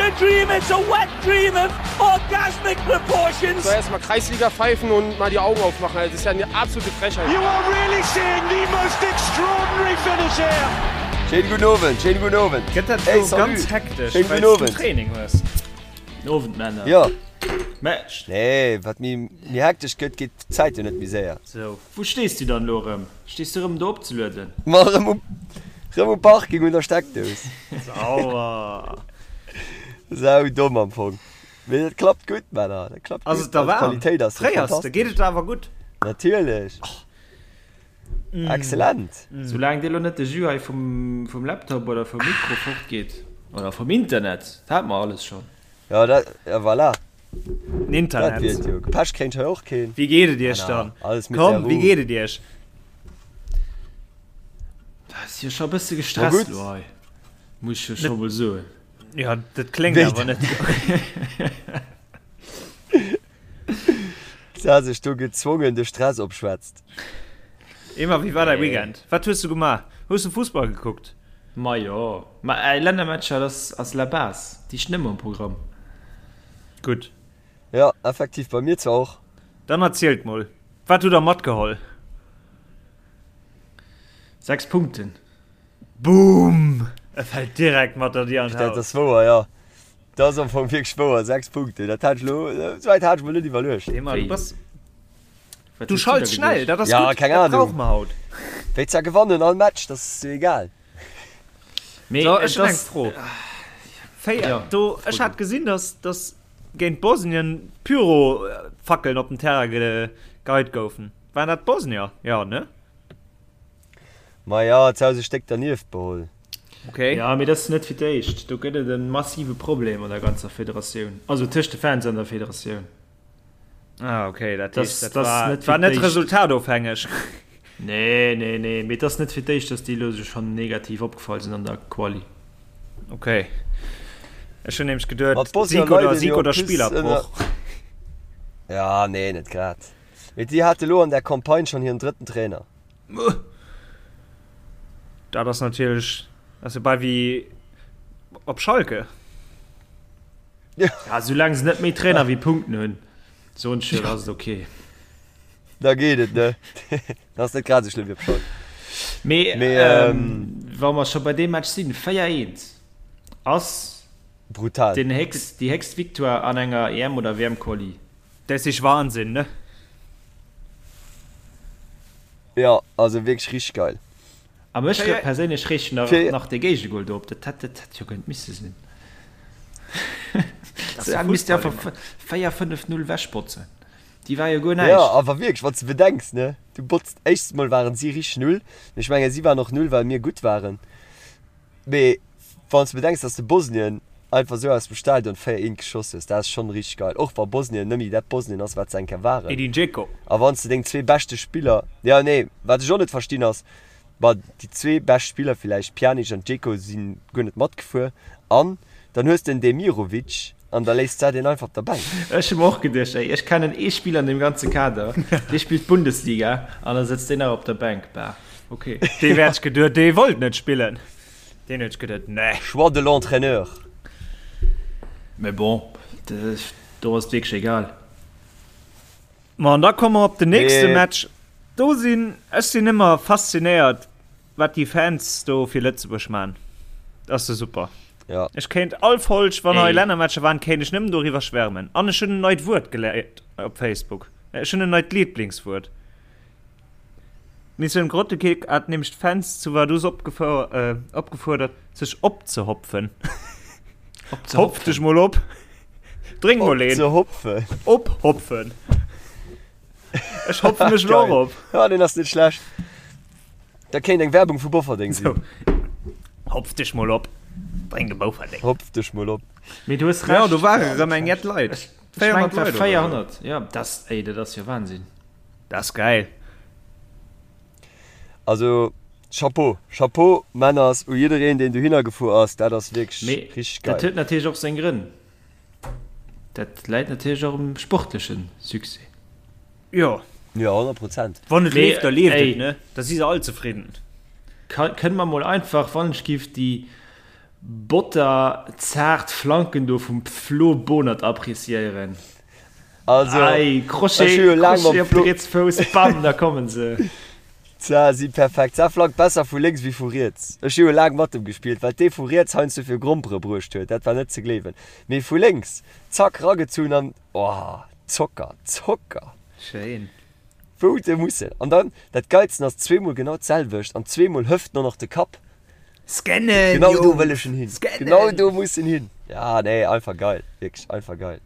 a dream, it's a wet dream of orgasmic proportions. So erstmal Kreisliga pfeifen und mal die Augen aufmachen. Das ist ja eine absolute Frechheit. You are really seeing the most extraordinary finish here. Schéinen guten Owend, schéinen guten Owend. Gëtt dat Hey, elo salut. ganz hektesch, Schéinen well guten s du Owend. Training hues? Guten Owend, Männer. Jo. Matcht. Nee, wat méi méi hektesch gëtt, geet d'Zäit jo net méi séier. Sou, wou stees du dann elo erëm? Stees du erëm do opzelueden? Ma erëm um, erëm um Parking un der Steckdous. Sauer. Sau domm am Fong. Mee dat klappt gutt, Männer, dat klappt Ass gutt. et da Also waarm? d'Qualitéit ass jo Fréiers de? Geet fantastesch. et der awer gutt? Natierlech. Excellent. Soulaang dir elo net de Jus hei vum, vum Laptop oder vum Mikro fortgeet, oder vum Internet, dat hate mer alles schonn. Ja, dat, ja voilà. Den Dat Internet. wier et jo. Pech kréint hei och keen. Wéi geet et iech Männer, dann? alles mit der Komm, wéi Ruh. geet et iech? Dat ass jo scho e bësse Ma gestresst gutt. elo hei, muss ech jo scho mol soen. Ja, dat kléngt Wéi awer net esou. Se hat sech do gezwongen de Stress opschwätzt. Emma, wéi war däi Weekend? Wat hues du gemaach? Hues du Fussball gekuckt? Majo, ma ey, Lännermatcher, dat ass la base, déi stinn ëmmer um Programm. Gutt. Jo, effektiv, bei mir zwar och. Dann erzielt mol, wat hutt der matgeholl? 6 Punkten. Boom! E fält direkt mat der Dier an Dat d'Haus. ass wouer, jo. Dat ass am Fong wierklech wouer, 6 Punkten, dat hat ech elo, esou wäit hat ech mol net iwwerluecht. Emma, du Wéi? bass, Wat du hues du da schalts schnell, geduecht? dat ass Ja, gutt, keng dat Ahnung. brauche mer haut. Wéi zwar gewannen all Match, dat ass jo egal. Mee So, et ech hunn eng ass, Fro. Féier, ja, do, fro ech du. hat gesinn, dass, dass géint Bosnien Pyrofackeln op den Terrain geheit goufen. Waren dat d'Bosnier? Jo, ne? Ma jo, et souz e Stéck dernieft beholl. Okay. Ja, mee dat ass net fir d'éischt. Do gëtt et e massive Problem an der ganzer Federatioun, also tëscht de Fans an der Federatioun. Ah, okay, dat Das, heescht, dat das war, net fir war net d'éischt. resultatofhängeg. Nee, nee, nee, mee et ass net fir d'éischt, dass déi elo sech schonn negativ opgefall sinn an der Quali. Okay. Ech hunn nämlech geduet, Ma d'Bosnier Sieg oder, leiden Sieg jo en oder plus Spillerbroch. ënner. Ja, nee, net grad. Mee déi hate lo an der Campagne schonn hiren drëtten Trainer. Dat ass natierlech, ass jo bal wéi op Schalke. Ja, soulaang se net méi Trainer wéi Punkten hunn, soen ech jo, da ass et ok. Da geet et, ne? Dat ass net grad esou schlëmm wéi op Schalke. Mee, Mee, ähm, wa mer scho bei deem Match sinn, 4, 1 ass Brutal. den héchst, déi héchst Victoire an enger EM oder WM-Quali. Dat is Wahnsinn, ne? Jo, also wierklech richteg geil. A mech Fir. perséinlech reegt nach, Fir. nach dee Géigegol do op. Dat hätt, dat hätt jo kënnt misse sinn. Dat ass Se de misst Fussball, einfach Emma. 4, 5, 0 wechbotzen. Déi war jo guer Jo, näischt. awer wierklech, wann s de bedenks, ne, du botzt, éischtens mol waren si richteg null, mee ech mengen si waren och null well mir gutt waren, mee wann s de bedenks, dass de Bosnien einfach esou aus dem Stadion 4, 1 geschoss hues, dat ass schonn richteg geil, och wa Bosnien nëmme dat Bosnien ass wat se eng Kéier waren. Edin Dzeko. A wann s de deng zwee beschte Spiller, jo nee, wat ech och net verstinn ass, ma déi zwee bescht Spiller villäicht, Pjanic an Dzeko, si guer net matgefuer an dann hues de en Demirovic an da léisst s de deen einfach op der Bänk. Ech hu mer och geduecht, ey, ech kennen ee Spiller an deem ganze Kader, dee spillt Bundesliga an da sëtzt deen nach op der Bänk. Bah, ok. Dee wäert geduet, dee wollt net spillen. Deen huet geduet, nee. Choix de l'entraîneur. Mais bon, do ass et wierklech egal. Ma an da komme mer op den nächste Mee. Match. Do sinn, ech sinn ëmmer faszinéiert, wat déi Fans do fir Lëtzebuerg man. Dat ass jo super. Ja. Ech kéint all Folg, wann hei Ey. Lännermatcher waren, kéint ech nëmmen doriwwer schwärmen. An ech hunn en neit Wuert geléiert op Facebook. Ech hunn en neit Lieblingswuert. D'Missioun Grottekick hat nämlech d'Fans zu Vaduz opgefuerdert, sech opzehopfen. Hopf dech mol op! Drénk mol een! Opzehopfen? Ophopfen! Ech hopfe mech elo och op! Ja, deen ass net schlecht. Dat kéint eng Werbung vu Bofferdeng sinn. Hopf dech mol op! Drénk e Bouferdeng! Hopf dech mol op! Mee du hues Recht. Jo, do ware rëm eng jett Leit. 400 Leit oder esou. 400, jo, dat, ey, dat ass jo Wahnsinn. Dat ass geil. Also Chapeau, Chapeau Männers u jiddereen deen dohinner gefuer ass, dat ass wierklech richteg geil. Dat huet natierlech och seng Grënn. Dat läit natierlech och um sportleche Succès. Jo. Jo, 100 Prozent. Wann et leeft, da leeft et, ne? Da si se all zefridden. Kënne mer mol einfach, wann ech giff, déi. Botter-zaart Flanken do vum Flo Bohnert appreciéieren. Also, Ei, Crochet, ech hu jo laang Crochet mam op de Flo. riets Fouss, bam, da kommen se. Tja, si perfekt. Sa flankt besser vu lénks wéi vu riets. Ech hu jo laang mat em gespillt, wat dee vu riets heiansdo fir Grompere bruecht huet, dat war net ze gleewen. Mee vu lénks, zack, ragezunn an, oh, Zocker, Zocker! Schéin. Wou de mussen. An dann, dat Geilsten ass, zweemol genau d'selwecht an zweemol hëft en och nach de Kapp. Scannen, Genau do Jungs! wëll ech en hin. Genau Scannen! do muss en hin. Ja, nee, einfach geil. Wierklech einfach geil.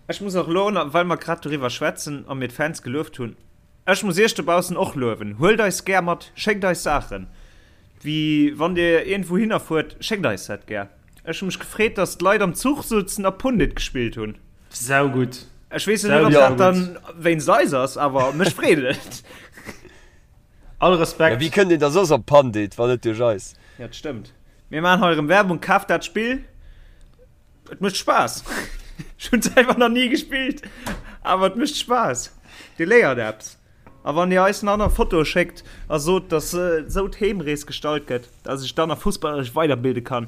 Ech muss och elo, well mer grad doriwwer schwätzen a mir d'Fans gelueft hunn, ech muss iech dobaussen och luewen, Huelt eis gär mat, schéckt eis Saachen, wéi wann dir iergendwou hinner fuert, schéckt eis dat gär. Ech hu mech gefreet, dass d'Leit am Zuch souzen a Pundit gespillt hunn. Saugutt. Ech weess jo net, ob dat dann wéinst eis ass, awer mech freet et. All Respekt. Ja, wéi kënnt een da soss op Pundit, wann net duerch eis? Ja, dat stëmmt. Mir maachen hei erëm Werbung, kaaft dat Spill. Et mécht Spaass. Ech hunn selwer nach ni gespillt, awer et mécht Spaass. Dir léiert eppes. A wann Dir eis nach nach Fotoe schéckt a sot, dass esou d'Heemrees gestalt gëtt, dass ech dann nach fussballeresch weiderbilde kann,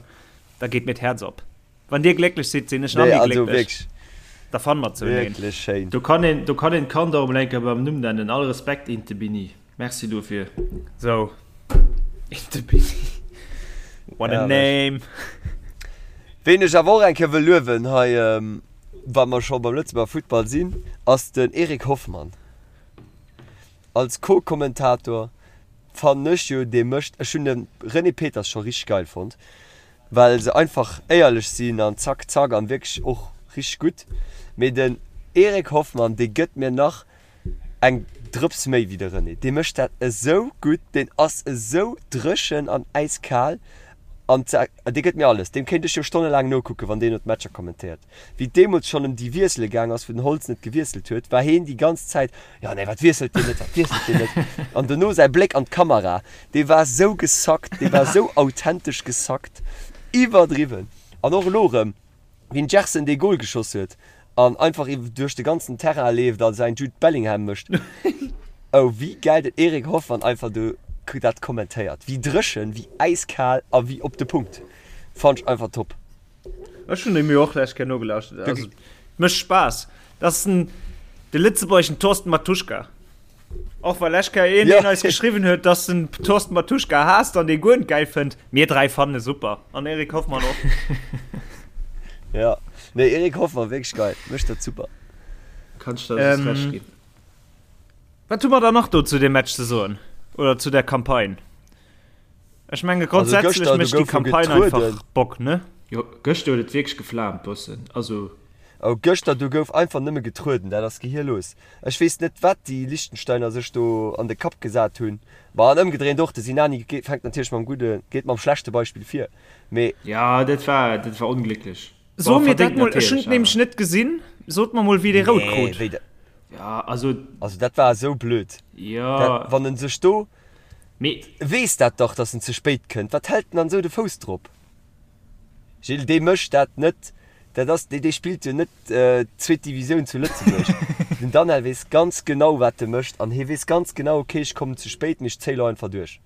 da geet mir d'Häerz op. Wann Dir glécklech sidd, sinn ech nach Nee, méi also glécklech. wierklech, Da fanne mer zoueneen. wierklech schéin. Do kann een, do kann een d'Kand och emol eng Kéier beim Numm nennen. All Respekt, Intebini. Merci dofir. Sou, Intebini. What a Herrlech. name! Ween ech awer och eng Kéier wëll luewen hei, wa mer scho beim Lëtzebuerger Futtball sinn, ass den Eric Hoffmann. Als Co-Kommentator fannen ech jo, dee mécht, ech hunn de René Peters scho richteg geil fonnt, well se einfach éierlech sinn an zack zack an wierklech och richteg gutt, mee den Eric Hoffmann, dee gëtt mir nach eng Drëps méi wéi de René. Dee mécht dat esou gutt, deen ass esou dréchen an äiskal an dee gëtt mir alles. Deem kéint ech jo stonnelaang nokucken, wann deen no d'Matcher kommentéiert. Wéi et deemools schonn ëm déi Wiessele gaang ass, wou den Holtz net gewiesselt huet, war heen déi ganz Zäit, Jo, nee, wat wiesselt deen net, wat wiesselt deen net? An dono säi Bléck an d'Kamera, dee war esou gesackt, dee war esou authentesch gesackt, iwwerdriwwen. An och elo erëm, wéi den Gerson dee Gol geschoss huet an einfach duerch de ganzen Terrain leeft a säin Jude Bellingham mécht. Oh wéi gäil den Eric Hoffmann einfach do dat kommentéiert, wéi dréchen, wéi äiskal a wéi op de Punkt. Fannt ech einfach top. Ech hunn mir och lech Kéier nogelauschtert. Also, mécht Spaass. Dat ass den, de lëtzebuergeschen Thorsten Matuschka. Och well lech Kéier een, deen eis geschriwwen huet, dass den Thorsten Matuschka haasst an dee guer net gäil fënnt. Mir 3 fannen e super. An Eric Hoffmann och. Ja, nee Eric Hoffmann wierklech geil, mécht dat super. Kann ech der just Recht ginn. Wat hu mer dann nach do zu deem Match ze soen? Oder zu der Campagne? Ech menge Also grundsätzlech gëschter, do mécht déi gouf jo Campagne einfach getrueden. Bock, ne? Jo, gëschter huet et wierklech geflaamt bëssen. Also. Oh, gëschter do gouf einfach nëmme getrueden, dat ass gehirlos. Ech weess net wat déi Liechtensteiner sech do an de Kapp gesat hunn. Ma an ëmgedréint och, de Sinani fänkt natierlech mam gudde, geet mam schlechte Beispill vir, mee. Jo, dat war, dat war onglécklech. So Bon, mir dat verdéngt mol, ech hunn natierlech et nämlech awer. net gesinn. Sot mer mol wéi dee rout Nee, krut. wéi dat. Ja, also. Also dat war esou blöd. Jo. Dat, wann en sech do. Mee. Weess dat dach, dass en ze spéit kënnt. Wat hält en dann esou de Fouss drop? Gilles, dee mécht dat net. Dat ass, dee spillt jo net zweet Divisioun zu Lëtzebuerg. Den Danel weess ganz genau, wat e mécht an hie weess ganz genau, okay, ech kommen ze spéit, mee ech zéie lo einfach duerch.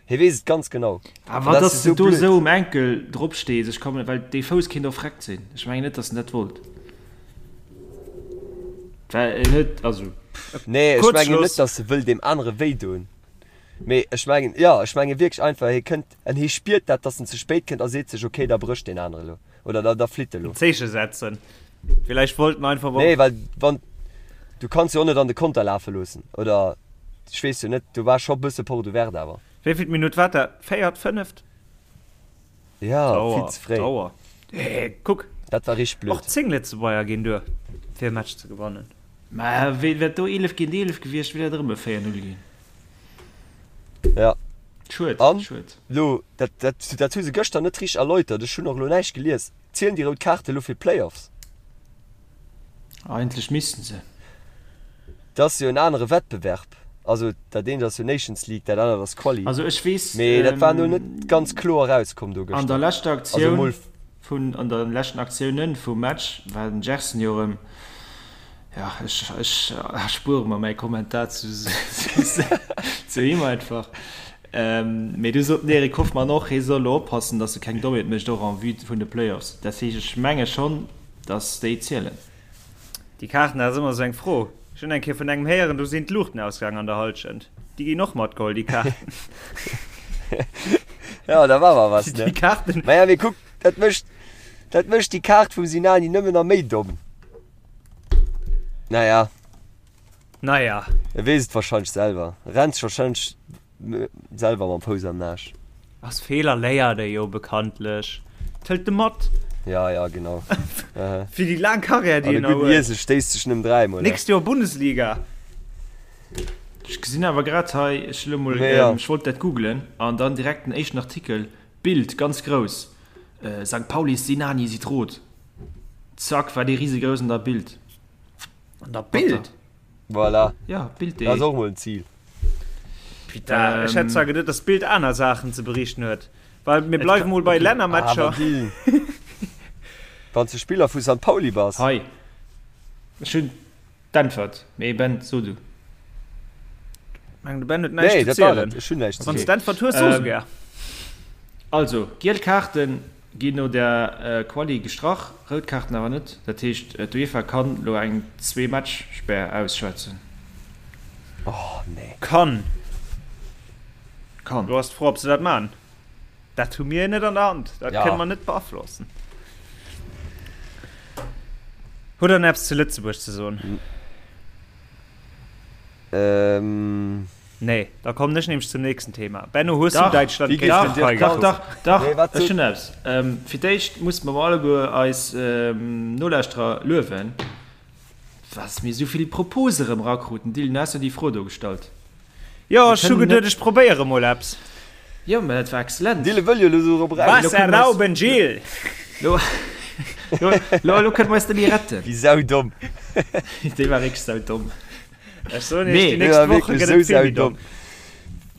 Hie weess et ganz genau. An Awer dat dass ass de esou do blöd. esou um Enkel drop stees, ech kommen, well dee Fouss kéint och vreckt sinn. Ech mengen net, dass en dat wollt. Well en huet, also. Nee, ech mengen Kuerzschluss. net, dass e wëll deem anere wéi doen. Mee ech mengen, jo, ech menge wierklech einfach, hie kënnt en hie spiert dat, dass en ze spéit kënnt a seet sech, okay, da brécht deen anere lo oder da, da flitt e lo. En Zeeche setzen. Villäicht wollt en einfach. Nee, well wann, du kanns jo och net an de Konter lafe loossen, oder ech weess jo net, do war scho bësse Porte ouverte awer. Wéivill Minutt war dat? Véiert, fënneft? Ja, vill ze fréi. Dauer. Hey, kuck. Dat war richteg blöd. Och 10 Lëtzebuerger ginn duer, fir e Match ze gewannen. Mä wéi wär do 11 géint 11 gewiescht, wier dat erëm e 4, 0 ginn. Ja. Schued, An schued. lo, dat, dat, dat hu se gëschter net richteg erläutert, ech hunn och elo näischt gelies, zielen déi rout Kaarte lo fir d'Playoffs? Eigentlech missten se. Dat ass jo en anere Wettbewerb. Also dat eent ass jo Nations League, dat anert ass Quali. Also ech weess, Mee dat war elo net ganz kloer erauskomm do an der gëschter. leschter Also Aktioun mol. vun, an der leschten Aktiounen vum Match war den Gerson jo erëm, jo ech, ech erspuere mer mäi Kommentar zu, zu him einfach. Mee du sot den Eric Hoffmann och, hie soll elo oppassen, datt e keng Dommheet mécht, och en vue vun de Playoffs. Dat heescht, ech menge schonn, datt déi zielen. Déi Kaarten, dat ass ëmmer esou eng Fro. Ech hunn eng Kéier vun engem héieren, do sinn d'Luuchten ausgaang an der Hallschent. Déi ginn och matgeholl, déi Kaarten. Jo, da war mer was, ne? Déi Kaarten. Maja, mee kuck, dat mécht, dat mécht déi Kaart vum Sinani nëmmen nach méi domm. Naja. Naja. E weess et wahrscheinlech selwer. E rennt sech wahrscheinlech selwer mam Fouss am Naasch. Aus Feeler léiert ee jo bekanntlech. Et hëlt e mat. Ja, ja, genau. Fir déi laang Karriär, déi An en e nach gudden huet. Iesel stéisst sech nëmmen dräimol. Nächst Joer Bundesliga. Ech gesinn awer grad hei, ech elo mol, Mee ja. ech wollt dat googlen an dann direkt den éischten Artikel, Bild, ganz grouss, Sankt Paulis Sinani sieht rot. Zack, war dee risegrouss an der Bild. An der Bild? Voilà. Ja, Bild.de. Dat ass och mol en Zil. Putain, ech hätt zwar geduet, dass d'Bild aner Saachen ze berichten huet. Well mir bleiwe mol bei Lännermatcher. Awer Dylan, wann s de Spiller vu Sankt Pauli bass. Hei, ech hunn d'Äntwert. Mee Ben, so du. Meng de Ben huet näischt Nee, ze dat war zielen. et. Ech hunn näischt ze Wann s soen. d'Äntwert hues, so se gär. Also, giel Kaarten Ginn no der Quali gestrach, rout Kaarten awer net. Dat heescht d'UEFA kann lo eng Zwee-Match-Spär ausschwätzen. Oh nee. Kann. Kann. Lo ass d'Fro ob se dat man. Dat hu mir net an der Hand, dat Ja. kënne mer net beaflossen. Hutt der eppes zu Lëtzebuerg ze soen? Ähm. Nee, da kommen ech nämlech zum nächsten Thema. Benno, hues du Dach, Däitschland Wéi géint gees den d'Türkei Dirk Dach, gekuckt? dach, dach, Nee, wat ech sot. hunn eppes. Fir d'éischt musse mer alleguer eis Nolauschterer luewen, dass mir esou vill Propose erëm erakruten. Dylan, du has jo déi Fro do gestallt. Jo, Mir ech hu kënnen geduet, net. ech probéiere mol eppes. Jo, mä dat war exzellent. Dylan wëll jo elo do drop eraus. Lo Was kënne mer eis, erlauben, Gilles? lo, lo, lo, lo kënne mer eis net méi retten. Wéi saudomm. Dee war wierklech saudomm. Ech soen iech, Mee. déi Dee nächst war Woche wierklech gëtt sou et vill méi domm. saudomm.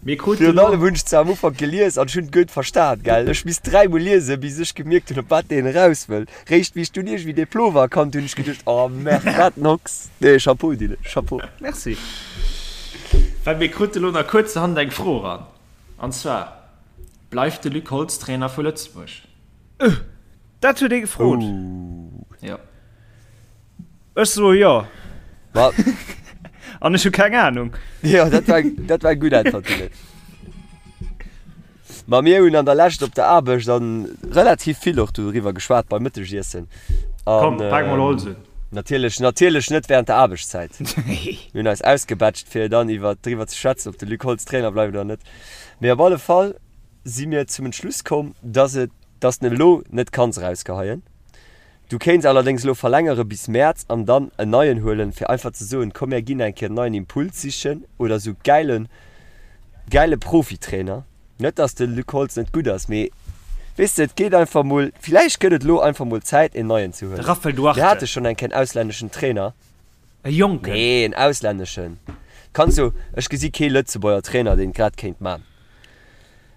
Mir kruten Virun elo. allem hunn ech se am Ufank gelies an ech hunn et guer net verstan, gell. Ech misst dräimol liesen, bis ech gemierkt hunn, op wat deen eraus wëll. Réischt wéi ech dunn iergendwéi dee Plover erkannt hunn, hunn ech geduecht, oh merde, wat en Hox. Nee, Chapeau, Dylan, Chapeau. Merci. Well mir krute elo nach kuerzerhand eng Fro eran, an zwar, Bleift de Luc Holtz Trainer vu Lëtzebuerg? Dat huet ee gefrot. Jo. Ech soe jo. Ma. An ech hu keng Anung. Jo, dat war, dat war eng gutt Äntwert, Dylan. Ma mir hunn an der Lescht op der Aarbecht an relativ vill och doriwwer geschwat beim Mëttegiessen. Komm, pak mol Holz un. Natierlech, natierlech net während der Aarbechtszäit. Mir hunn eis ausgebetscht, fir dann iwwer, driwwer ze schwätzen, ob de Luc Holtz Trainer bleift oder net. Mee op alle Fall si mir zum Entschluss komm, dass et, dass den elo net kanns erausgeheien. Du kéints allerdéngs elo verlängere bis Mäerz an dann en neien huelen, fir einfach ze soen, komm mär ginn eng Kéier en neien Impuls sichen oder sou gäile gäile Profitrainer. Net dass de Luc Holtz net gutt ass, mee weess de, et geet einfach mol, villäicht gëtt et elo einfach mol Zäit en neien ze De huelen. Raphael Mir Duarte. hate schonn eng Kéier en auslänneschen Trainer. E Jonken. Nee, en auslänneschen. Kanns du, ech gesi kee Lëtzebuerger Trainer deen et grad kéint man.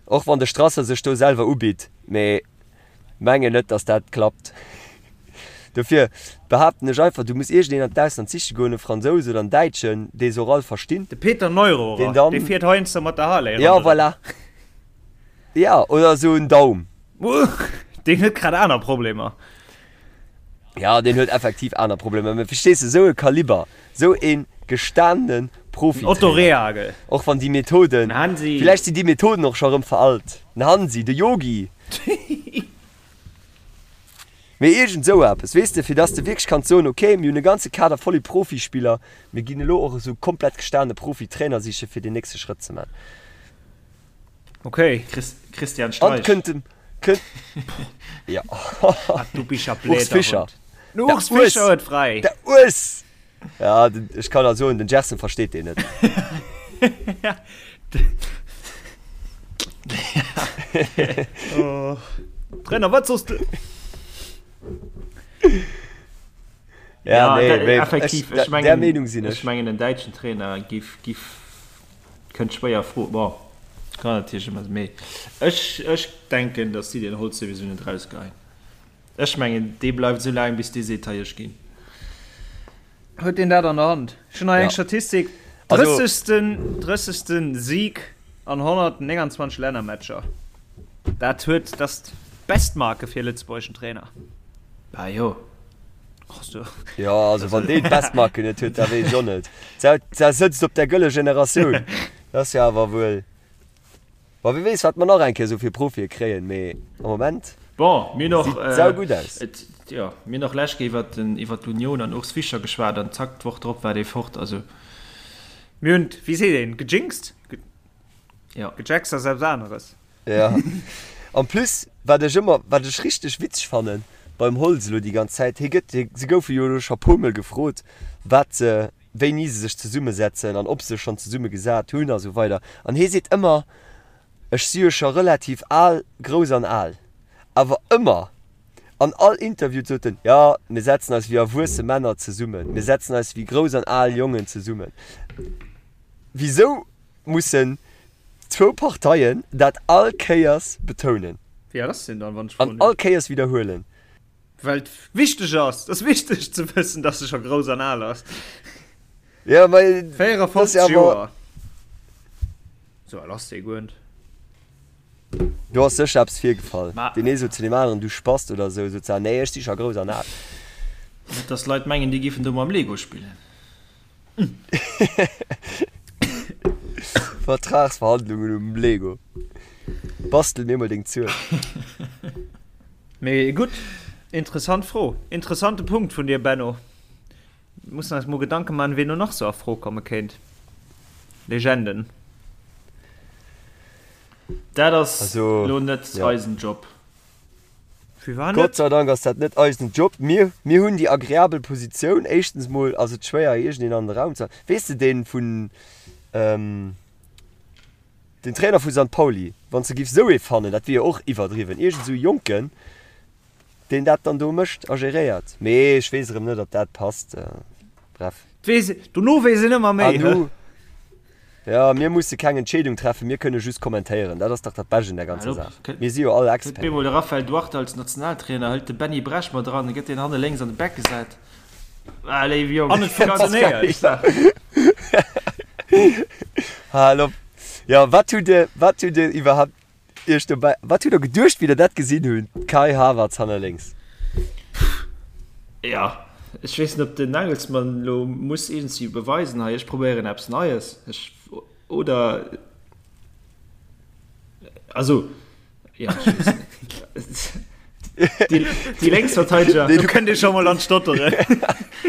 Och wann de Strasser sech do selwer ubitt, mee Mengen net dass dat klappt. Dofir behaapten ech einfach, du muss iergendeen an d'Ausland siche goen, e Fransous oder en Däitschen, dee se och all verstinn. De Peter Neururer, deen dann, dee fiert heiansdo mat der Harley Ja, ronderëm. voilà. Ja, oder esou en Daum. Deen huet grad aner Problemer. Ja, deen huet effektiv aner Problemer, mä verstees de, esou e Kaliber, esou e gestanene Den Otto Profitrainer, Rehhagel. och wann déi Methoden, Den Hansi. villäicht sinn déi Methoden och scho erëm veralt, den Hansi, de Yogi. Mee iergend esou eppes, weess de, fir dass de wierklech kanns soen, okay, mir hunn e ganze Kader voller Profispiller, mir ginn elo och esou komplett gestane Profitrainer siche fir deen nächste Schrëtt ze man. Okay. Chris, Christian An Streich. kënnt dem, kënnt, ja, Ah, du bist ja Urs blöder Fischer. Hund. Den Der Urs Fischer Urs, huet frei. der Urs! Ja, den, ech kann der soen, den Gerson versteet deen net. Oh. Trainer, wat soss du? Ja, Ja, nee, da, mee effektiv, ech, ech der, der mengen, Meenung sinn ech ech. mengen en däitschen Trainer giff, giff, kënnt schwéier a Fro. Bon, kann natierlech ëmmer, mee ech, ech denken, datt si den Holtz souwisou net erausgeheien. Ech mengen, dee bleift esou laang, bis dee seet, hei, ech ginn. Huet deen dat an der Hand? Ech hunn hei eng Ja. Statistik, Also. 30. 30. Sieg. An 129 Lännermatcher. Dat huet, dat ass d'Bestmarke fir e lëtzebuergeschen Trainer. Bah jo. Jo, also wann deen d'Bestmarke net huet, da weess ech och net. Sa sëtzt op der gëlle Generatioun. Dat ass jo awer wuel. Bon, wie weess, wat mer nach eng Kéier esou fir Profie kréien, mee am Moment Bon, mir hunn och, sieht saugutt aus. et, jo, mir hunn och lech Kéier iwwert den, iwwert l'Union an Urs Fischer geschwat an zack, d'Woch drop war dee fort. Also. Mir hunn, wéi seet een, gejinxt? Jo. Gejaxt ass eppes aneres. Ja. En plus, wat ech ëmmer, wat ech richteg witzeg fannen beim Holtz elo déi ganz Zäit, hie gëtt, se goufe jo elo scho puermol gefrot, wat se, wéini se sech zesummesetzen an ob se sech schonn zesumme gesat hunn a sou weider. An hie seet ëmmer, Ech si jo scho relativ al, grouss an al. Awer ëmmer, an all Interview sot en, Jo, mir setzen eis wéi erwuesse Männer zesummen, mir setzen eis wéi grouss an al Jongen zesummen. Wisou mussen zwou Parteien dat all Kéiers betounen? Wéi al ass deen dann, wann ech froen An all Kéiers widderhuelen? Well et wichteg ass. Et ass wichteg ze wëssen, dass e scho grouss an al ass. Ja, ma 54 Joer. Sou al ass dee guer net. Do ass sécher eppes virgefall. Deen ee sot zu deem aneren, du Spast oder esou, sot se, nee, ech si scho grouss an al. Net dass Leit mengen, déi giffen do mam Lego spillen. Vertragsverhandlungen um Lego. Bastel mir mol deng Zuel. Mee gutt, interessant Fro. Interessante Punkt vun dir, Benno. Mussen eis mol Gedanke man, ween do nach sou a Fro komme kéint. Legenden. Dat ass elo net eisen Job. Firwat net? Gott sei Dank ass dat net eisen Job. Mir, mir hunn déi agreabel Positioun. Éischtens mol ass et schwéier, iergendeen an de Raum ze. Weess de, dee vun, den Trainer vu Sankt Pauli, wann s de giffs esou ee fannen, dat wier jo och iwwerdriwwen, iergend esou e Jonken, deen dat dann do mécht a geréiert. Mee ech weess erëm net, ob dat passt. Bref. Weess, dono weess een ëmmer méi, An hä? nu, jo, mir musse keng Entscheedung treffen, mir kënne just kommentéieren. Dat ass dach dat Bescht un der ganzer Saach. Mir si jo all Kënnt Experten. bemol de Raphael Duarte als Nationaltrainer, hëlt de Benny Bresch mat eran, gëtt deen hanne lénks an de Back gesat. Ah, léiwe Jong. An et funktionéiert. Hal op. Jo, wat hutt Dir, wat hutt Dir iwwerhaapt Iech dobäi, wat hutt Der geduecht, wéi Der dat gesinn hunn, Kai Havertz hanner lénks? Jo, ech weess net, ob den Nagelsmann elo muss iergendwéi beweisen, hei, ech probéieren eppes Neies, ech, oder, also, jo, ech weess net. Déi, déi Lénksverteideger. Do kënnt ee scho mol an d'Stotteren.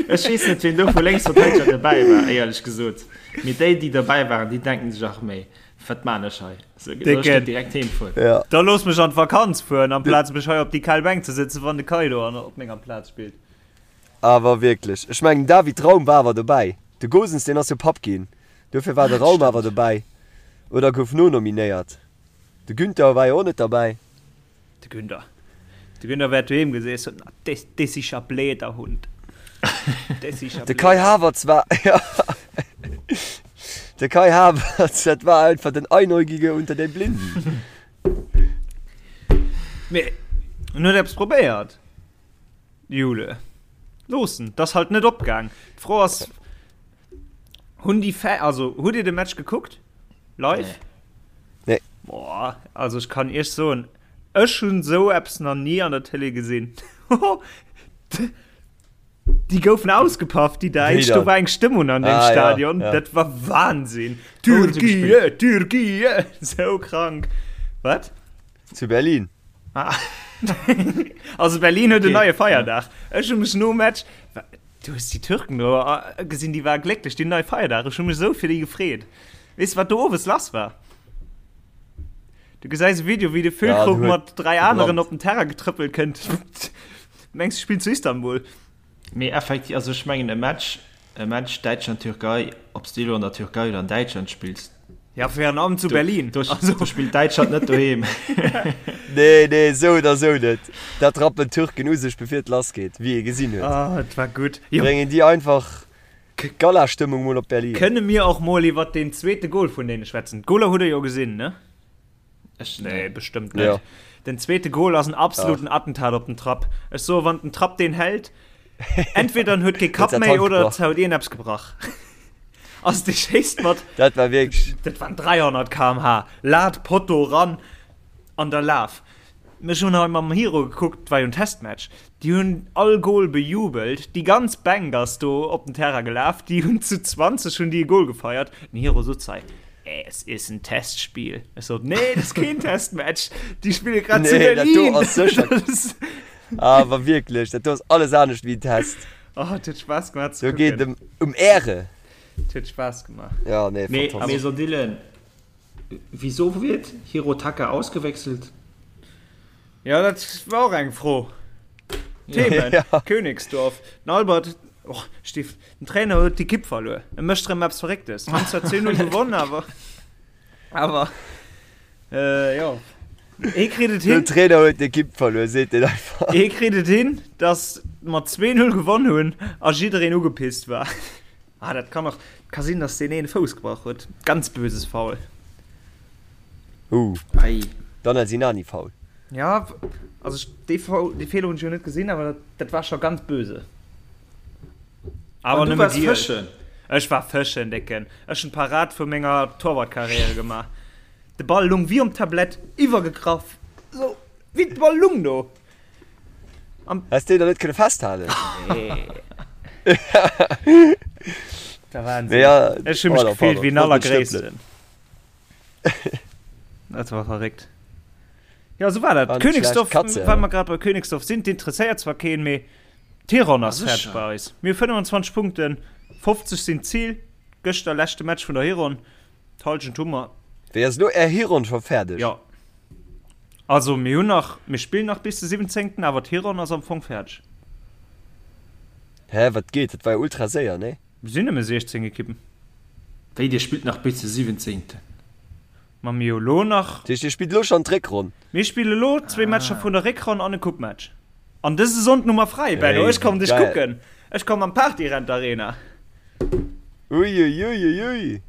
Ech weess net, wien do vu Lénksverteideger dobäi war, éierlech gesot. Mee déi, déi dobäi waren, déi denken sech, ach méi, wat maan ech hei? Soll ech net direkt heem fueren? Ja. Da looss mech an d'Vakanz fueren, amplaz mech hei op déi kal Bänk ze sëtzen, wann de Kai do an op menger Plaz spillt. Awer wierklech. Ech mengen, den David Raum war awer dobäi. De Gosens, deen ass jo Papp ginn. Dofir war de Raum awer dobäi. Oder gouf nonominéiert. De Günther war jo och net derbäi. De Günther. De Günther wäert doheem geseess hunn, Des, des isch a bläder Hund. Des isch a De Kai bläder. Havertz war, ja, de Kai Havertz, dat war einfach den Einäugige unter den Blinden. Mee en huet eppes probéiert, Jule. Looss en, 't ass halt net opgaang. D'Fro ass, Hunn déi Fa also hutt Dir de Match gekuckt? Live? Nee. Boah, also ech kann Iech soen, ech hunn esou eppes nach ni an der Tëlee gesinn. Déi goufen ausgepaff, déi Däitsch. Do war eng Stëmmung an deem ah, Stadion. Ja, ja. Dat war Wahnsinn. Türkiye, Türkiye. Sou krank. Wat? Zu Berlin. Ah. also Berlin huet okay. en neie Feierdag. Ech hu mech nom Match. Du hues déi Türken do gesinn, déi ware glécklech, déi hunn nei Feierdag. Ech hu mech esou fir déi gefreet. Weess de, wat do owes lass war? Du gesäis e Video, wéi de Füllkrug mat 3 aneren op den Terrain getrëppelt kënnt. Mengs, du spills zu Istanbul. Mee effektiv, also ech mengen e Match, e Match Däitschland-Türkei, ob s de elo an der Türkei oder an Däitschland spills, Ja, virun allem zu Berlin. Do, also. do spillt Däitschland net doheem. Nee, nee, esou oder esou net. Dat rappen d'Türken u sech, bevir et lass geet, wéi ee gesinn huet. Ah, et war gutt. Jo. Bréngen déi einfach Galastëmmung mol op Berlin. Kënne mir och mol iwwert deen zweete Gol vun deene schwätzen? D'Goler hutt der jo gesinn, ne? Ech nee, bestëmmt net. Ja. Den zweete Gol ass en absoluten Ach. Attentat op den Trapp. Ech soe wann den Trapp deen hält, entweder en huet kee Kapp méi oder et huet een eppes gebrach. Ass dee schéisst mat. Dat war wierklech. Dat waren 300 km/h. Lat, Potto ran an der Laf. Ech hunn hei mam Hiro gekuckt, war jo en Testmatch. Déi hunn all Goal bejubelt, déi ganz Bänk ass do op den Terrain gelaf, déi hunn zu 20 hunn déi e Goal gefeiert. Den Hiro sot hei, Es ist ein Testspiel. Ech sot, Nee, dat ass keen Testmatch, déi spille grad zu Nee, dat do Berlin. ass sécher. Awer wierklech, dat do ass alles anescht wéi en Test. Oh, et huet Spaass gemaach ze Do geet kucken. et ëm ëm Äre. Et huet Spaass gemaach. Ja, nee, Mee, fantastesch. mee so Dylan, wieso wird Hirotaka ausgewechselt? Ja, dat war och eng Fro. Themen, Ja. Königsdorf, den Albert, och, Stiff, den Trainer huet d'Ekipp verluer. E mécht erëm eppes Verrécktes. Hunn zwar 10-0 gewonnen, awer, awer, äh, jo. Hie kritt et Den hin, Trainer huet d'Ekipp verluer, seet deen einfach. hie kritt et hin, dass mer 2-0 gewonnen hunn a jiddereen ugepisst war. Ah, dat kann och, ka sinn, dass deen een Fouss gebrach huet. Ganz böses Foul. Uh, Ei. Dann Sinani Foul. Ja, also ech, dee Foul, dee Feeler hunn ech jo net gesinn, awer dat, dat war scho ganz böse. Awer An du nëmme waars giel. fëschen? Ech war fëschen, Décken. Ech hunn d'Parad vu menger Torwartkarriere gemaach. De Ball lung wéi um Tablett, iwwergegraff, sou wéi de Ball lung do. Am Häss deen der net kënne festhalen? Nee. Der Wahnsinn. Nee, ja, Ech hu mech pardon, gefillt pardon. wéi den Wollt net stëppelen. Allergréissten. Dat war verréckt. Ja, sou war dat. War net schlecht. Königsdorf, Katze, well ja. mer grad bei Königsdorf sinn, d'interesséiert zwar keen, mee d'Hironn ass Ah, fäerdeg sécher. bei eis. Mir hu 25 Punkten, 50 sinn d'Zil. Gëschter leschte Match vun der Hironn. D'Hallschent hu mer. Wéi ass elo är Hironn scho fäerdeg? Jo. Also mir hunn nach, mir spillen nach bis de 17., awer d'Hironn ass am Fong fäerdeg. Hä, wat geet? Dat war jo ultra séier, nee? Mir sinn nëmme 16 Ekippen. Wéi, dir spillt nach bis de 17.? Ma mir hu lo nach. Dat heescht, dir spillt elo schonn d'Réckronn? Mir spille lo zwee Matcher vun der Réckronn an e Coupematch. An dëse Sonnden hu mer fräi, Benno. Hey, Ech kommen dech geil. kucken. Ech kommen an d'Partyrent Arena. Uiuiuiui.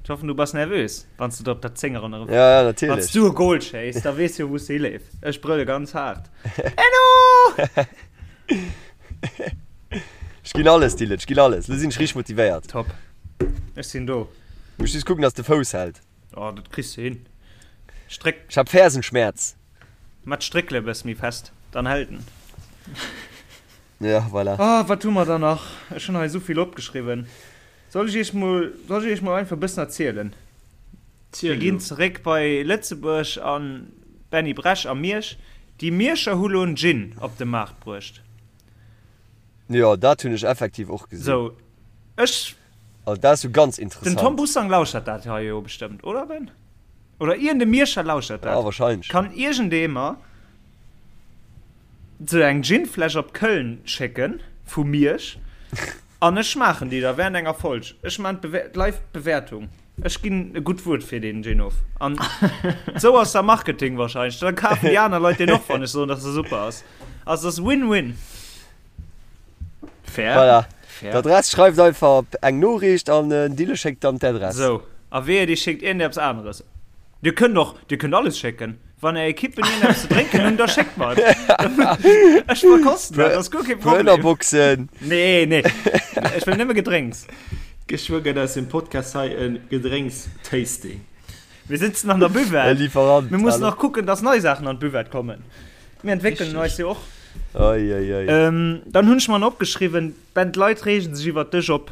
Ech hoffen du bass nervös, wann s du der op der Zéngeronn erëm. Ja, ja, Wann natierlech. s du e Goal schéiss, da weess jo wou s du hileefs. Ech brëlle ganz haart. Benno! Ech ginn alles, Dylan, ech ginn alles. Lo sinn ech richteg motivéiert. Top. Ech sinn do. Muss just kucken, dass de Fouss hält. Oh, dat kriss du hin. Stréck. Ech hab Fersenschmerz. Mat d'Stréckele bëss méi fest, dann hält en. Ja, voilà. Oh, wat hu mer da nach? Ech hunn hei esou vill opgeschriwwen. Soll ech iech mol, soll ech iech mol einfach e bëssen erzielen? Ziel Mir ginn jo. zeréck bei Lëtzebuerg a Benny Bresch a Miersch. Déi Mierscher hu lo en Gin op de Maart bruecht. Jo, dat hunn ech effektiv och gesinn. Sou, ech. Also dat ass jo ganz Den Tom interessant. Bussang lauschert dat hei jo bestëmmt, oder Ben? Oder iergend e Mierscher lauschert Ja, dat. wahrscheinlech. Kann iergendee mer sou eng Ginfläsch op Köln schécken vu Miersch an ech schmaachen déi da während enger Folg. Ech maan d'live Bewäertung. Ech ginn e gutt Wuert fir deen Gin of. An sou ass da Marketing wahrscheinlech. Da kafen déi aner Leit deen och, wann ech soen, dass e super ass. Also ass Win-Win. Fair. Voilà. Fair. D'Adress schreift einfach eng Noriicht an den Dille schéckt dann d'Adress. Sou, a wehe dir schéckt iergendeppes aneres. Dir kënnt och, dir kënnt alles schécken. Wann är Ekippen iergendeppes ze drénken hunn, da schéckt mer et. Ech verkosten dat, ass guer kee Puer Problem. Ënnerboxen. Nee, nee, ech wëll nëmme Gedrénks. Geschwë gëtt aus dem Podcast hei e Gedrénks-Tasting. Mir sitzen an der Buvette. E Lieferant. Mir mussen och kucken, dass nei Saachen an d'Buvette kommen. Mir entwéckelen eis jo och. Oi, oi, oi. Dann hunn ech mer opgeschriwwen, Ben, d'Leit reegen sech iwwert dech op.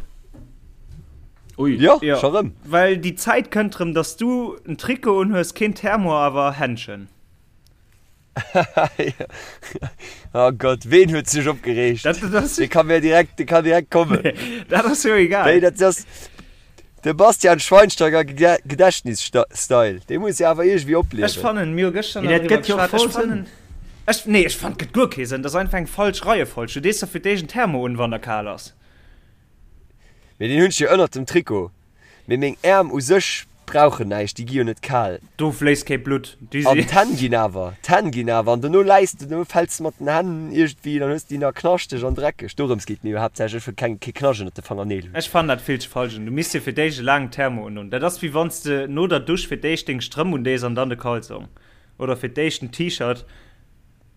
Ui. Jo, Jo, scho rëm. well déi Zäit kënnt rëm, dass du en Trikot unhues, keen Thermo, awer Händschen. Oh Gott, ween huet sech opgereegt? Dat, dat ass, Dee kann mir direkt, dee kann direkt kommen. dat ass jo egal. Wéi, dat ass de Bastian Schweinsteiger Gedächtnis-Style. Dee muss jo awer iergendwéi Ech opliewen. fannen, mir hu gëschter Mee nach dat driwwer gëtt jo geschwat, voll ech fannen, ech, nee, ech fannen, et gëtt guer kee Sënn. Dat ass einfach eng falsch Reiefolg. Du dees der fir d'éischt en Thermo un, wann der kal ass. Mee deen hunn ech jo ënnert dem Trikot. Mee meng Äerm u sech brauchen näischt, déi gi jo net kal. Do fléisst kee Blutt, déi An si. d'Hänn ginn awer, d'Hänn ginn awer. An dono läis de, dono fäls de mat den Hänn iergendwéi, dann hues de déi nach knaschteg an dreckeg. Dorëms geet et mir jo haaptsächlech, ech wëll keng, kee Knascht ënnert de Fangerneel hunn. Ech fannen dat vill ze falsch un. Du misst dir fir d'éischt e laangen Thermo undoen. Dat ass wéi wann s de no der Dusch fir d'éischt deng Strëmp undees an dann de Kalzong. Oder fir d'éischt en T-Shirt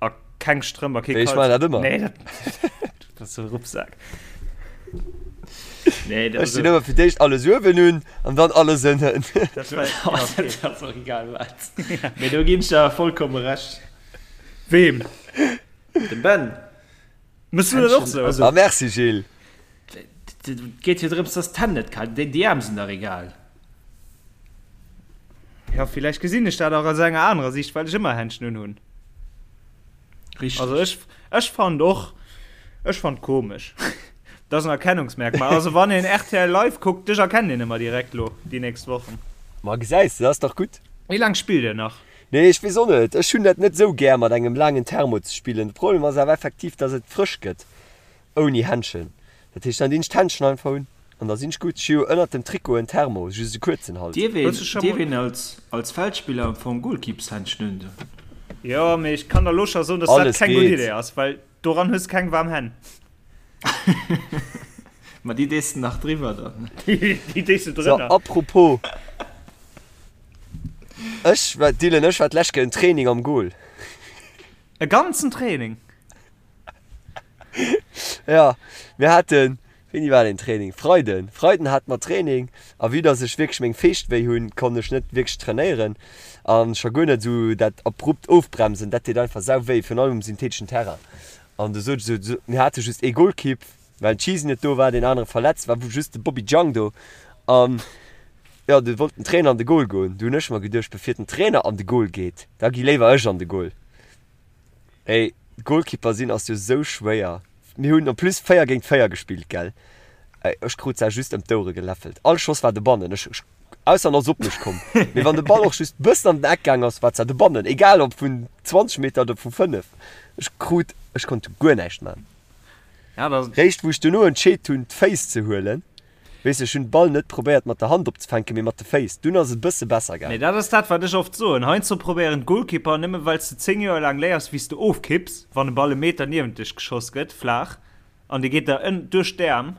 a keng Strëmp a kee Wéi, ech maachen Kalzong. dat ëmmer. Nee, dat, du bass e Ruppsak. Nee, Ech dinn ëmmer fir d'éischt alles uewen un an dann alles ënnen. Dat war, ja, okay. Dat ass och egal wat. Mee do ginn ech der vollkomme Recht. Weem? Dem Ben. Mëss du dat och sou? Ah merci Gilles. Et geet jo drëms, dass d'Hänn net kal sinn. Déi Äerm sinn dach egal. Ja, villäicht gesinn ech dat och aus enger anerer Sicht, well ech ëmmer Händschen unhunn. Richteg. Also ech, ech fand och, ech fand komesch. Dat ass en Erkennungsmerkmal. Also wann een rtl Live kuckt, dech erkennt een ëmmer direkt lo déi nächst Wochen. Ma gesäis de, dat ass dach gutt. Wéi laang spillt dir nach? Nee, ech weess och net. Ech hunn dat net esou gär mat engem laangen Thermo ze spillen. De Problem ass awer effektiv, dass et frësch gëtt ouni Händschen. Dat heescht, dann dinn ech d'Händschen einfach un an da sinn ech gutt. Ech hu jo ënnert dem Trikot en Thermo, just e kuerzen halt. Dierf Hues du scho een, dierf mol. een als, als Feldspiller am Fong Goalkeepershändschen un doen? Jo, mee ech kann der lo scho soen, dass dat Alles keng gutt geet. Idee ass, well doran hues keng waarm Hänn. Ma déi dees de nach driwwer dann. Déi dees de So, drënner. apropos, ech war, Dylan, ech war d'lescht Kéier en Training am Goal. E ganzen Training? Ja, mir haten, wéini war deen Training? Freiden. Freiden hate mer Training a vue dass ech wierklech meng Feescht wéi hunn, konnt ech net wierklech trainéieren a scho guer net esou dat abrupt Ofbremsen, dat deet einfach sau wéi, virun allem um syntheteschen Terrain. An du sot ech esou, mir hate just ee Golkipp, well den Cheesy net do war, deen anere verletzt war, just de Bobby Jang do an jo, du wollt den Trainer an de Gol goen. Du hunn ech mer geduecht, bevir den Trainer an de Gol geet, da gi léiwer ech an de Gol. Ey, Goalkeeper sinn ass jo sou schwéier. Mir hunn en plus 4 géint 4 gespillt, gell? Ey, ech krut se just ëm d'Ouere geläffelt. All Schoss war dobannen, ech, ech, ausser en ass op mech komm. Mee wann de Ball och just bëssen an den Eck gaang ass, war se dobannen, egal ob vun 20 Meter oder vu 5. Ech krut, ech konnt guer näischt man. Ja, dat. Réischt wou ech dono entscheet hunn, d'Féiss ze huelen, Weess, ech hunn de Ball net probéiert mat der Hand opzefänken, mee mat de Féiss. Dunn ass et e bësse besser Mee gaangen. dat ass dat, wat ech oft soen, Heiansdo probéieren d'Goalkeeper, nëmme well s de 10 Joer laang léiers, wéi s de ofkipps, wann e Ball e Meter niewent dech geschoss gëtt, flaach, an dee geet der ënn duerch d'Äerm,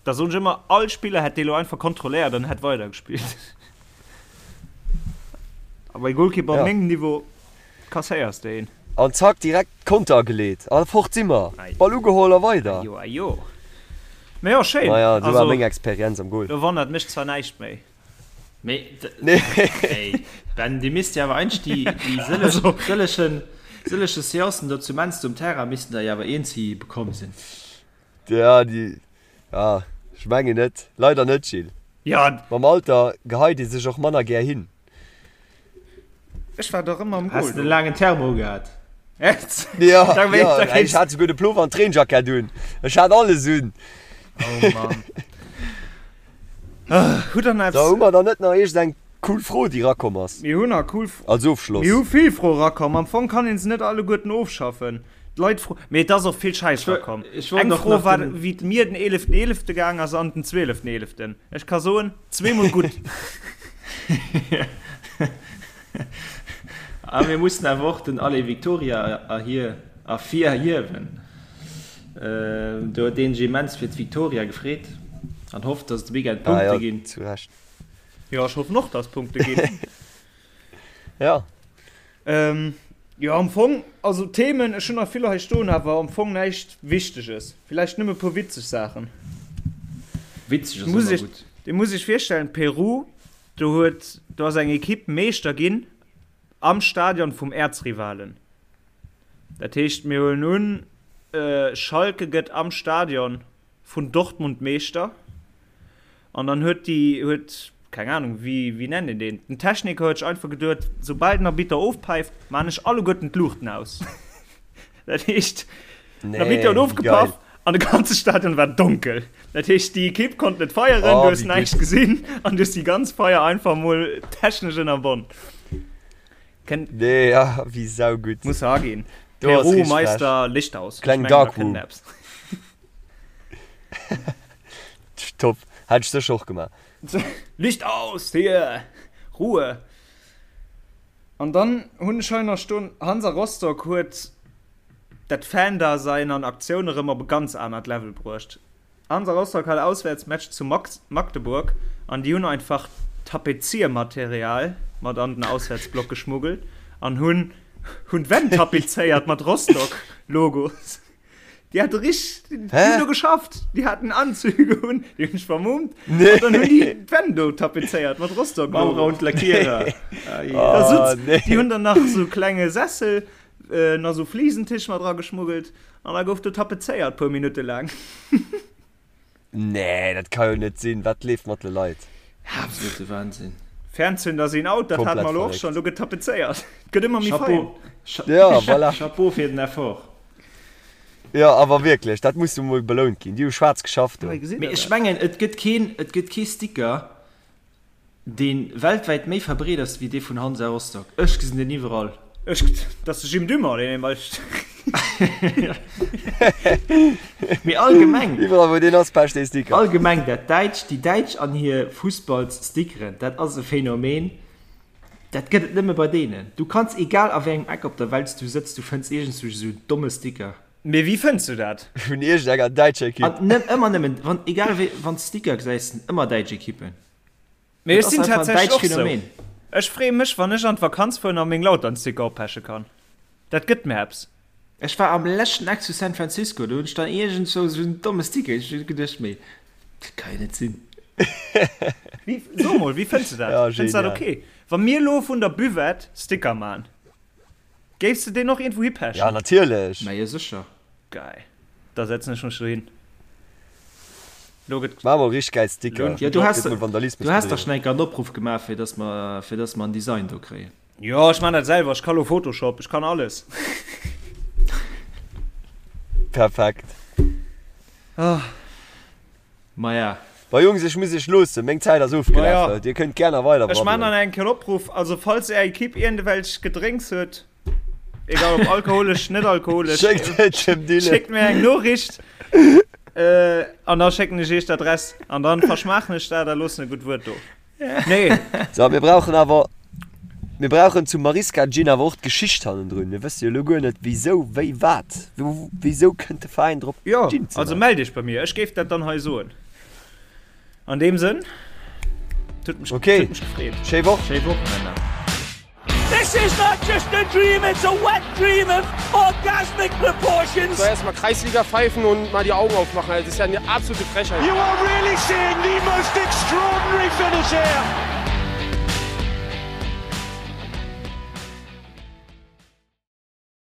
da soen ech ëmmer, all Spiller hätt dee lo einfach kontrolléiert an hätt weidergespillt. A bei Goalkeeper op Ja. mengem Niveau Kasséiers de een. An zack direkt Konter ageleet a fort si mer. Ball ugeholl a weider. Ajo ajo. Mee jo schéin. Maja esou war Also meng Experienz am Goal. do wonnert mech zwar näischt méi. Mee Nee. ey Ben, dir misst jo awer eigentlech déi déi sëllech Also. sëllechen sëlleche Seancen do zu Menster um Terrain missten der jo awer eens hi bekomm sinn. Ja déi ja ech mengen net. Leider net Gilles. Ja. Mam Alter geheit ee sech och manner gär hin. Ech war dach ëmmer am Has Goal de do. laangen Thermo gehat? Echt? Ja, Da wéi, ja, da ey, kéints. ech hat souguer de Plover an d'Reenjackett un. Ech hat alles un. Oh Mann. Ah, hutt der nach So, hu eppes? mer dann net nach iergend eng cool Fro, déi rakomm ass? Mir hunn nach cool F. Als Ofschloss. Mir hu vill Froe rakomm. Am Fong kann een se net alleguerten ofschaffen. D'Leit fro. Mee et ass och vill Schäiss Ech wol, rakomm. ech wollt Eng och Fro nach war, den. wéi et mir den 11.11. gaang ass an den 12.11. Ech ka soen, zweemol gutt. A mir mussen awer och den Allez Victoria erhir, ervirhiewen. Do huet een sech immens fir d'Victoria gefreet an hofft, dass et de Weekend Ah Punkte jo, ginn. zu Recht. Jo, ech hoffen och, dass Punkte ginn. Ja. Ähm, jo, am Fong, also Themen, ech hunn nach vill hei stoen, awer am Fong näischt Wichteges. Villäicht nëmme e puer witzeg Saachen. Witzeg ass Muss ëmmer ech, gutt. Dir musst iech virstellen, Peru, do huet, do ass eng Ekipp Meeschter ginn am Stadion vum Äerzrivalen. Dat heescht, mir huelen un, Schalke gëtt am Stadion vun Dortmund Meeschter an dann huet déi, huet, keng Ahnung, wéi, wéi nennt een deen, den Techniker huet sech einfach geduet, soubal den Arbitter ofpäift, maan ech alleguerten d'Luuchten aus. Dat heescht, den Arbitter huet Nee, wéi geil. ofgepaff an de ganze Stadion war donkel. Dat heescht, déi Ekipp konnt net feieren, du Oh, hues wéi näischt gutt. gesinn an du hues déi ganz Feier einfach mol technesch ënnerbonn. Kennt. Nee, ja, wéi saugutt. Muss aginn. Do ass Peru, richteg frech. Meister, Licht aus. Ech Kleng mengen, da Dark kënnt Room. eppes. Top. Hätt ech sécher och gemaach. Licht aus hier! Ruhe! An dann hunn ech hei nach stoen, Hansa Rostock huet dat Fan-Dasein an Aktioun erëm op e ganz anert Level bruecht. Hansa Rostock hat Auswäertsmatch zu Magdeburg an déi hunn einfach Tapeziermaterial mat an den Auswäertsblock geschmuggelt an hunn hunn d'Wänn tapezéiert mat Rostock-Logos. Déi hate rich, déi hunn do geschafft, déi haten Anzüge un, déi hunn sech vermummt an dann hunn déi d'Wänn do tapezéiert mat Rostock-Logo. Maurer und Lackierer. Da sutz, déi hunn dann nach sou klenge Sessel, nach sou Flisentisch mat erageschmuggelt an da gouf do tapezéiert puer Minutte laang. Nee, dat ka jo net sinn. Wat leeft mat de Leit? Absolute Wahnsinn. Fernzünder sinn out, dat hate mer elo och schonn. Elo gëtt tapezéiert. Et gëtt ëmmer méi fein. Ja, voilà. Chapeau fir den Effort. Jo, awer wierklech, dat muss jo mol belount ginn. Déi hu schwaarz geschafft do. Mee ech mengen, et gëtt keen, et gëtt kee Sticker, Deen weltwäit méi verbreet ass wéi dee vun Hansa Rostock. Ech gesinn deen iwwerall. Ech, dat ass de Jim Dumont, deen een bei. Mee allgemeng. Iwwerall wou deen ass, pecht dee Sticker. Allgemeng dat Däitsch, déi Däitsch an hir Fussballsstickeren, dat ass e Phänomen, dat gëtt et nëmme bei deenen. Du kanns, egal a wéi engem Eck op der Welt s du sëtz, du fënns iergendswou esou en domme Sticker. Mee wéi fënns du dat? Vun iergendenger däitscher Ekipp. An net ëmmer nëmmen, wann, egal wéi, wann s Sticker gesäis, sinn ëmmer däitsch Ekippen. Mee ech sinn tatsächlech och sou. Ech freeë mech wann ech an d'Vakanz fueren a meng Lautern-Sticker oppeche kann. Dat gëtt mir eppes. Ech war am leschten Eck zu San Francisco, do hunn ech dann iergendzwou sou en domme Sticker, ech hunn geduecht, mee dat ka jo net sinn. Wéi, so mol, wéi fënns de dat? Ja, Fënns de dat genial. ok? Wa mir elo vun der Buvette Sticker man, géifs de deen och iergendwou Ja, hipechen? natierlech. Mä jo sécher. Geil. Da setzen ech mech dohin. Lo gëtt. Maach mol richteg gäil Sticker. Jo, du has, Gëtt mol Vandalismus du has dach bedriwwen. schon eng Kéier en Opruff gemaach, fir dass mer, fir dass mer en Design do kréien. Jo, ech man dat selwer. Ech ka lo Photoshop, ech kann alles. Perfekt. Maja. Bon Jungs, ech muss iech loossen, meng Zäit ass ofgelaf. Maja. Dir kënnt gär nach weider Ech man brabbelen. dann eng Kéier en Opruff, also falls är Equipe iergendewelch Gedrénks huet, Egal ob alkoholesch, net alkoholesch. Schéckt et dem Dylan. Schéckt mir eng Noriicht äh, an da schécken ech iech d'Adress an dann verschmaachen ech dat a loossen e gutt Wuert do. Nee. So, mir brauchen awer mir brauchen zum Mariska Gin awer och d'Geschicht hannendrun. Mir wësse jo elo guer net wéisou, wéi, wat. Wéisou kënnt de Veräin drop Jo, Gin ze also maachen? mellt iech bei mir, ech géif dat dann hei soen. An deem Sënn, et huet mech, Okay. huet mech gefreet. Schéi Woch. Schéi Woch, Männer. This is not just a dream, it's a wet dream of orgasmic proportions. So erstmal Kreisliga pfeifen und mal die Augen aufmachen. Also, das ist ja eine absolute Frechheit. You are really seeing the most extraordinary finish here.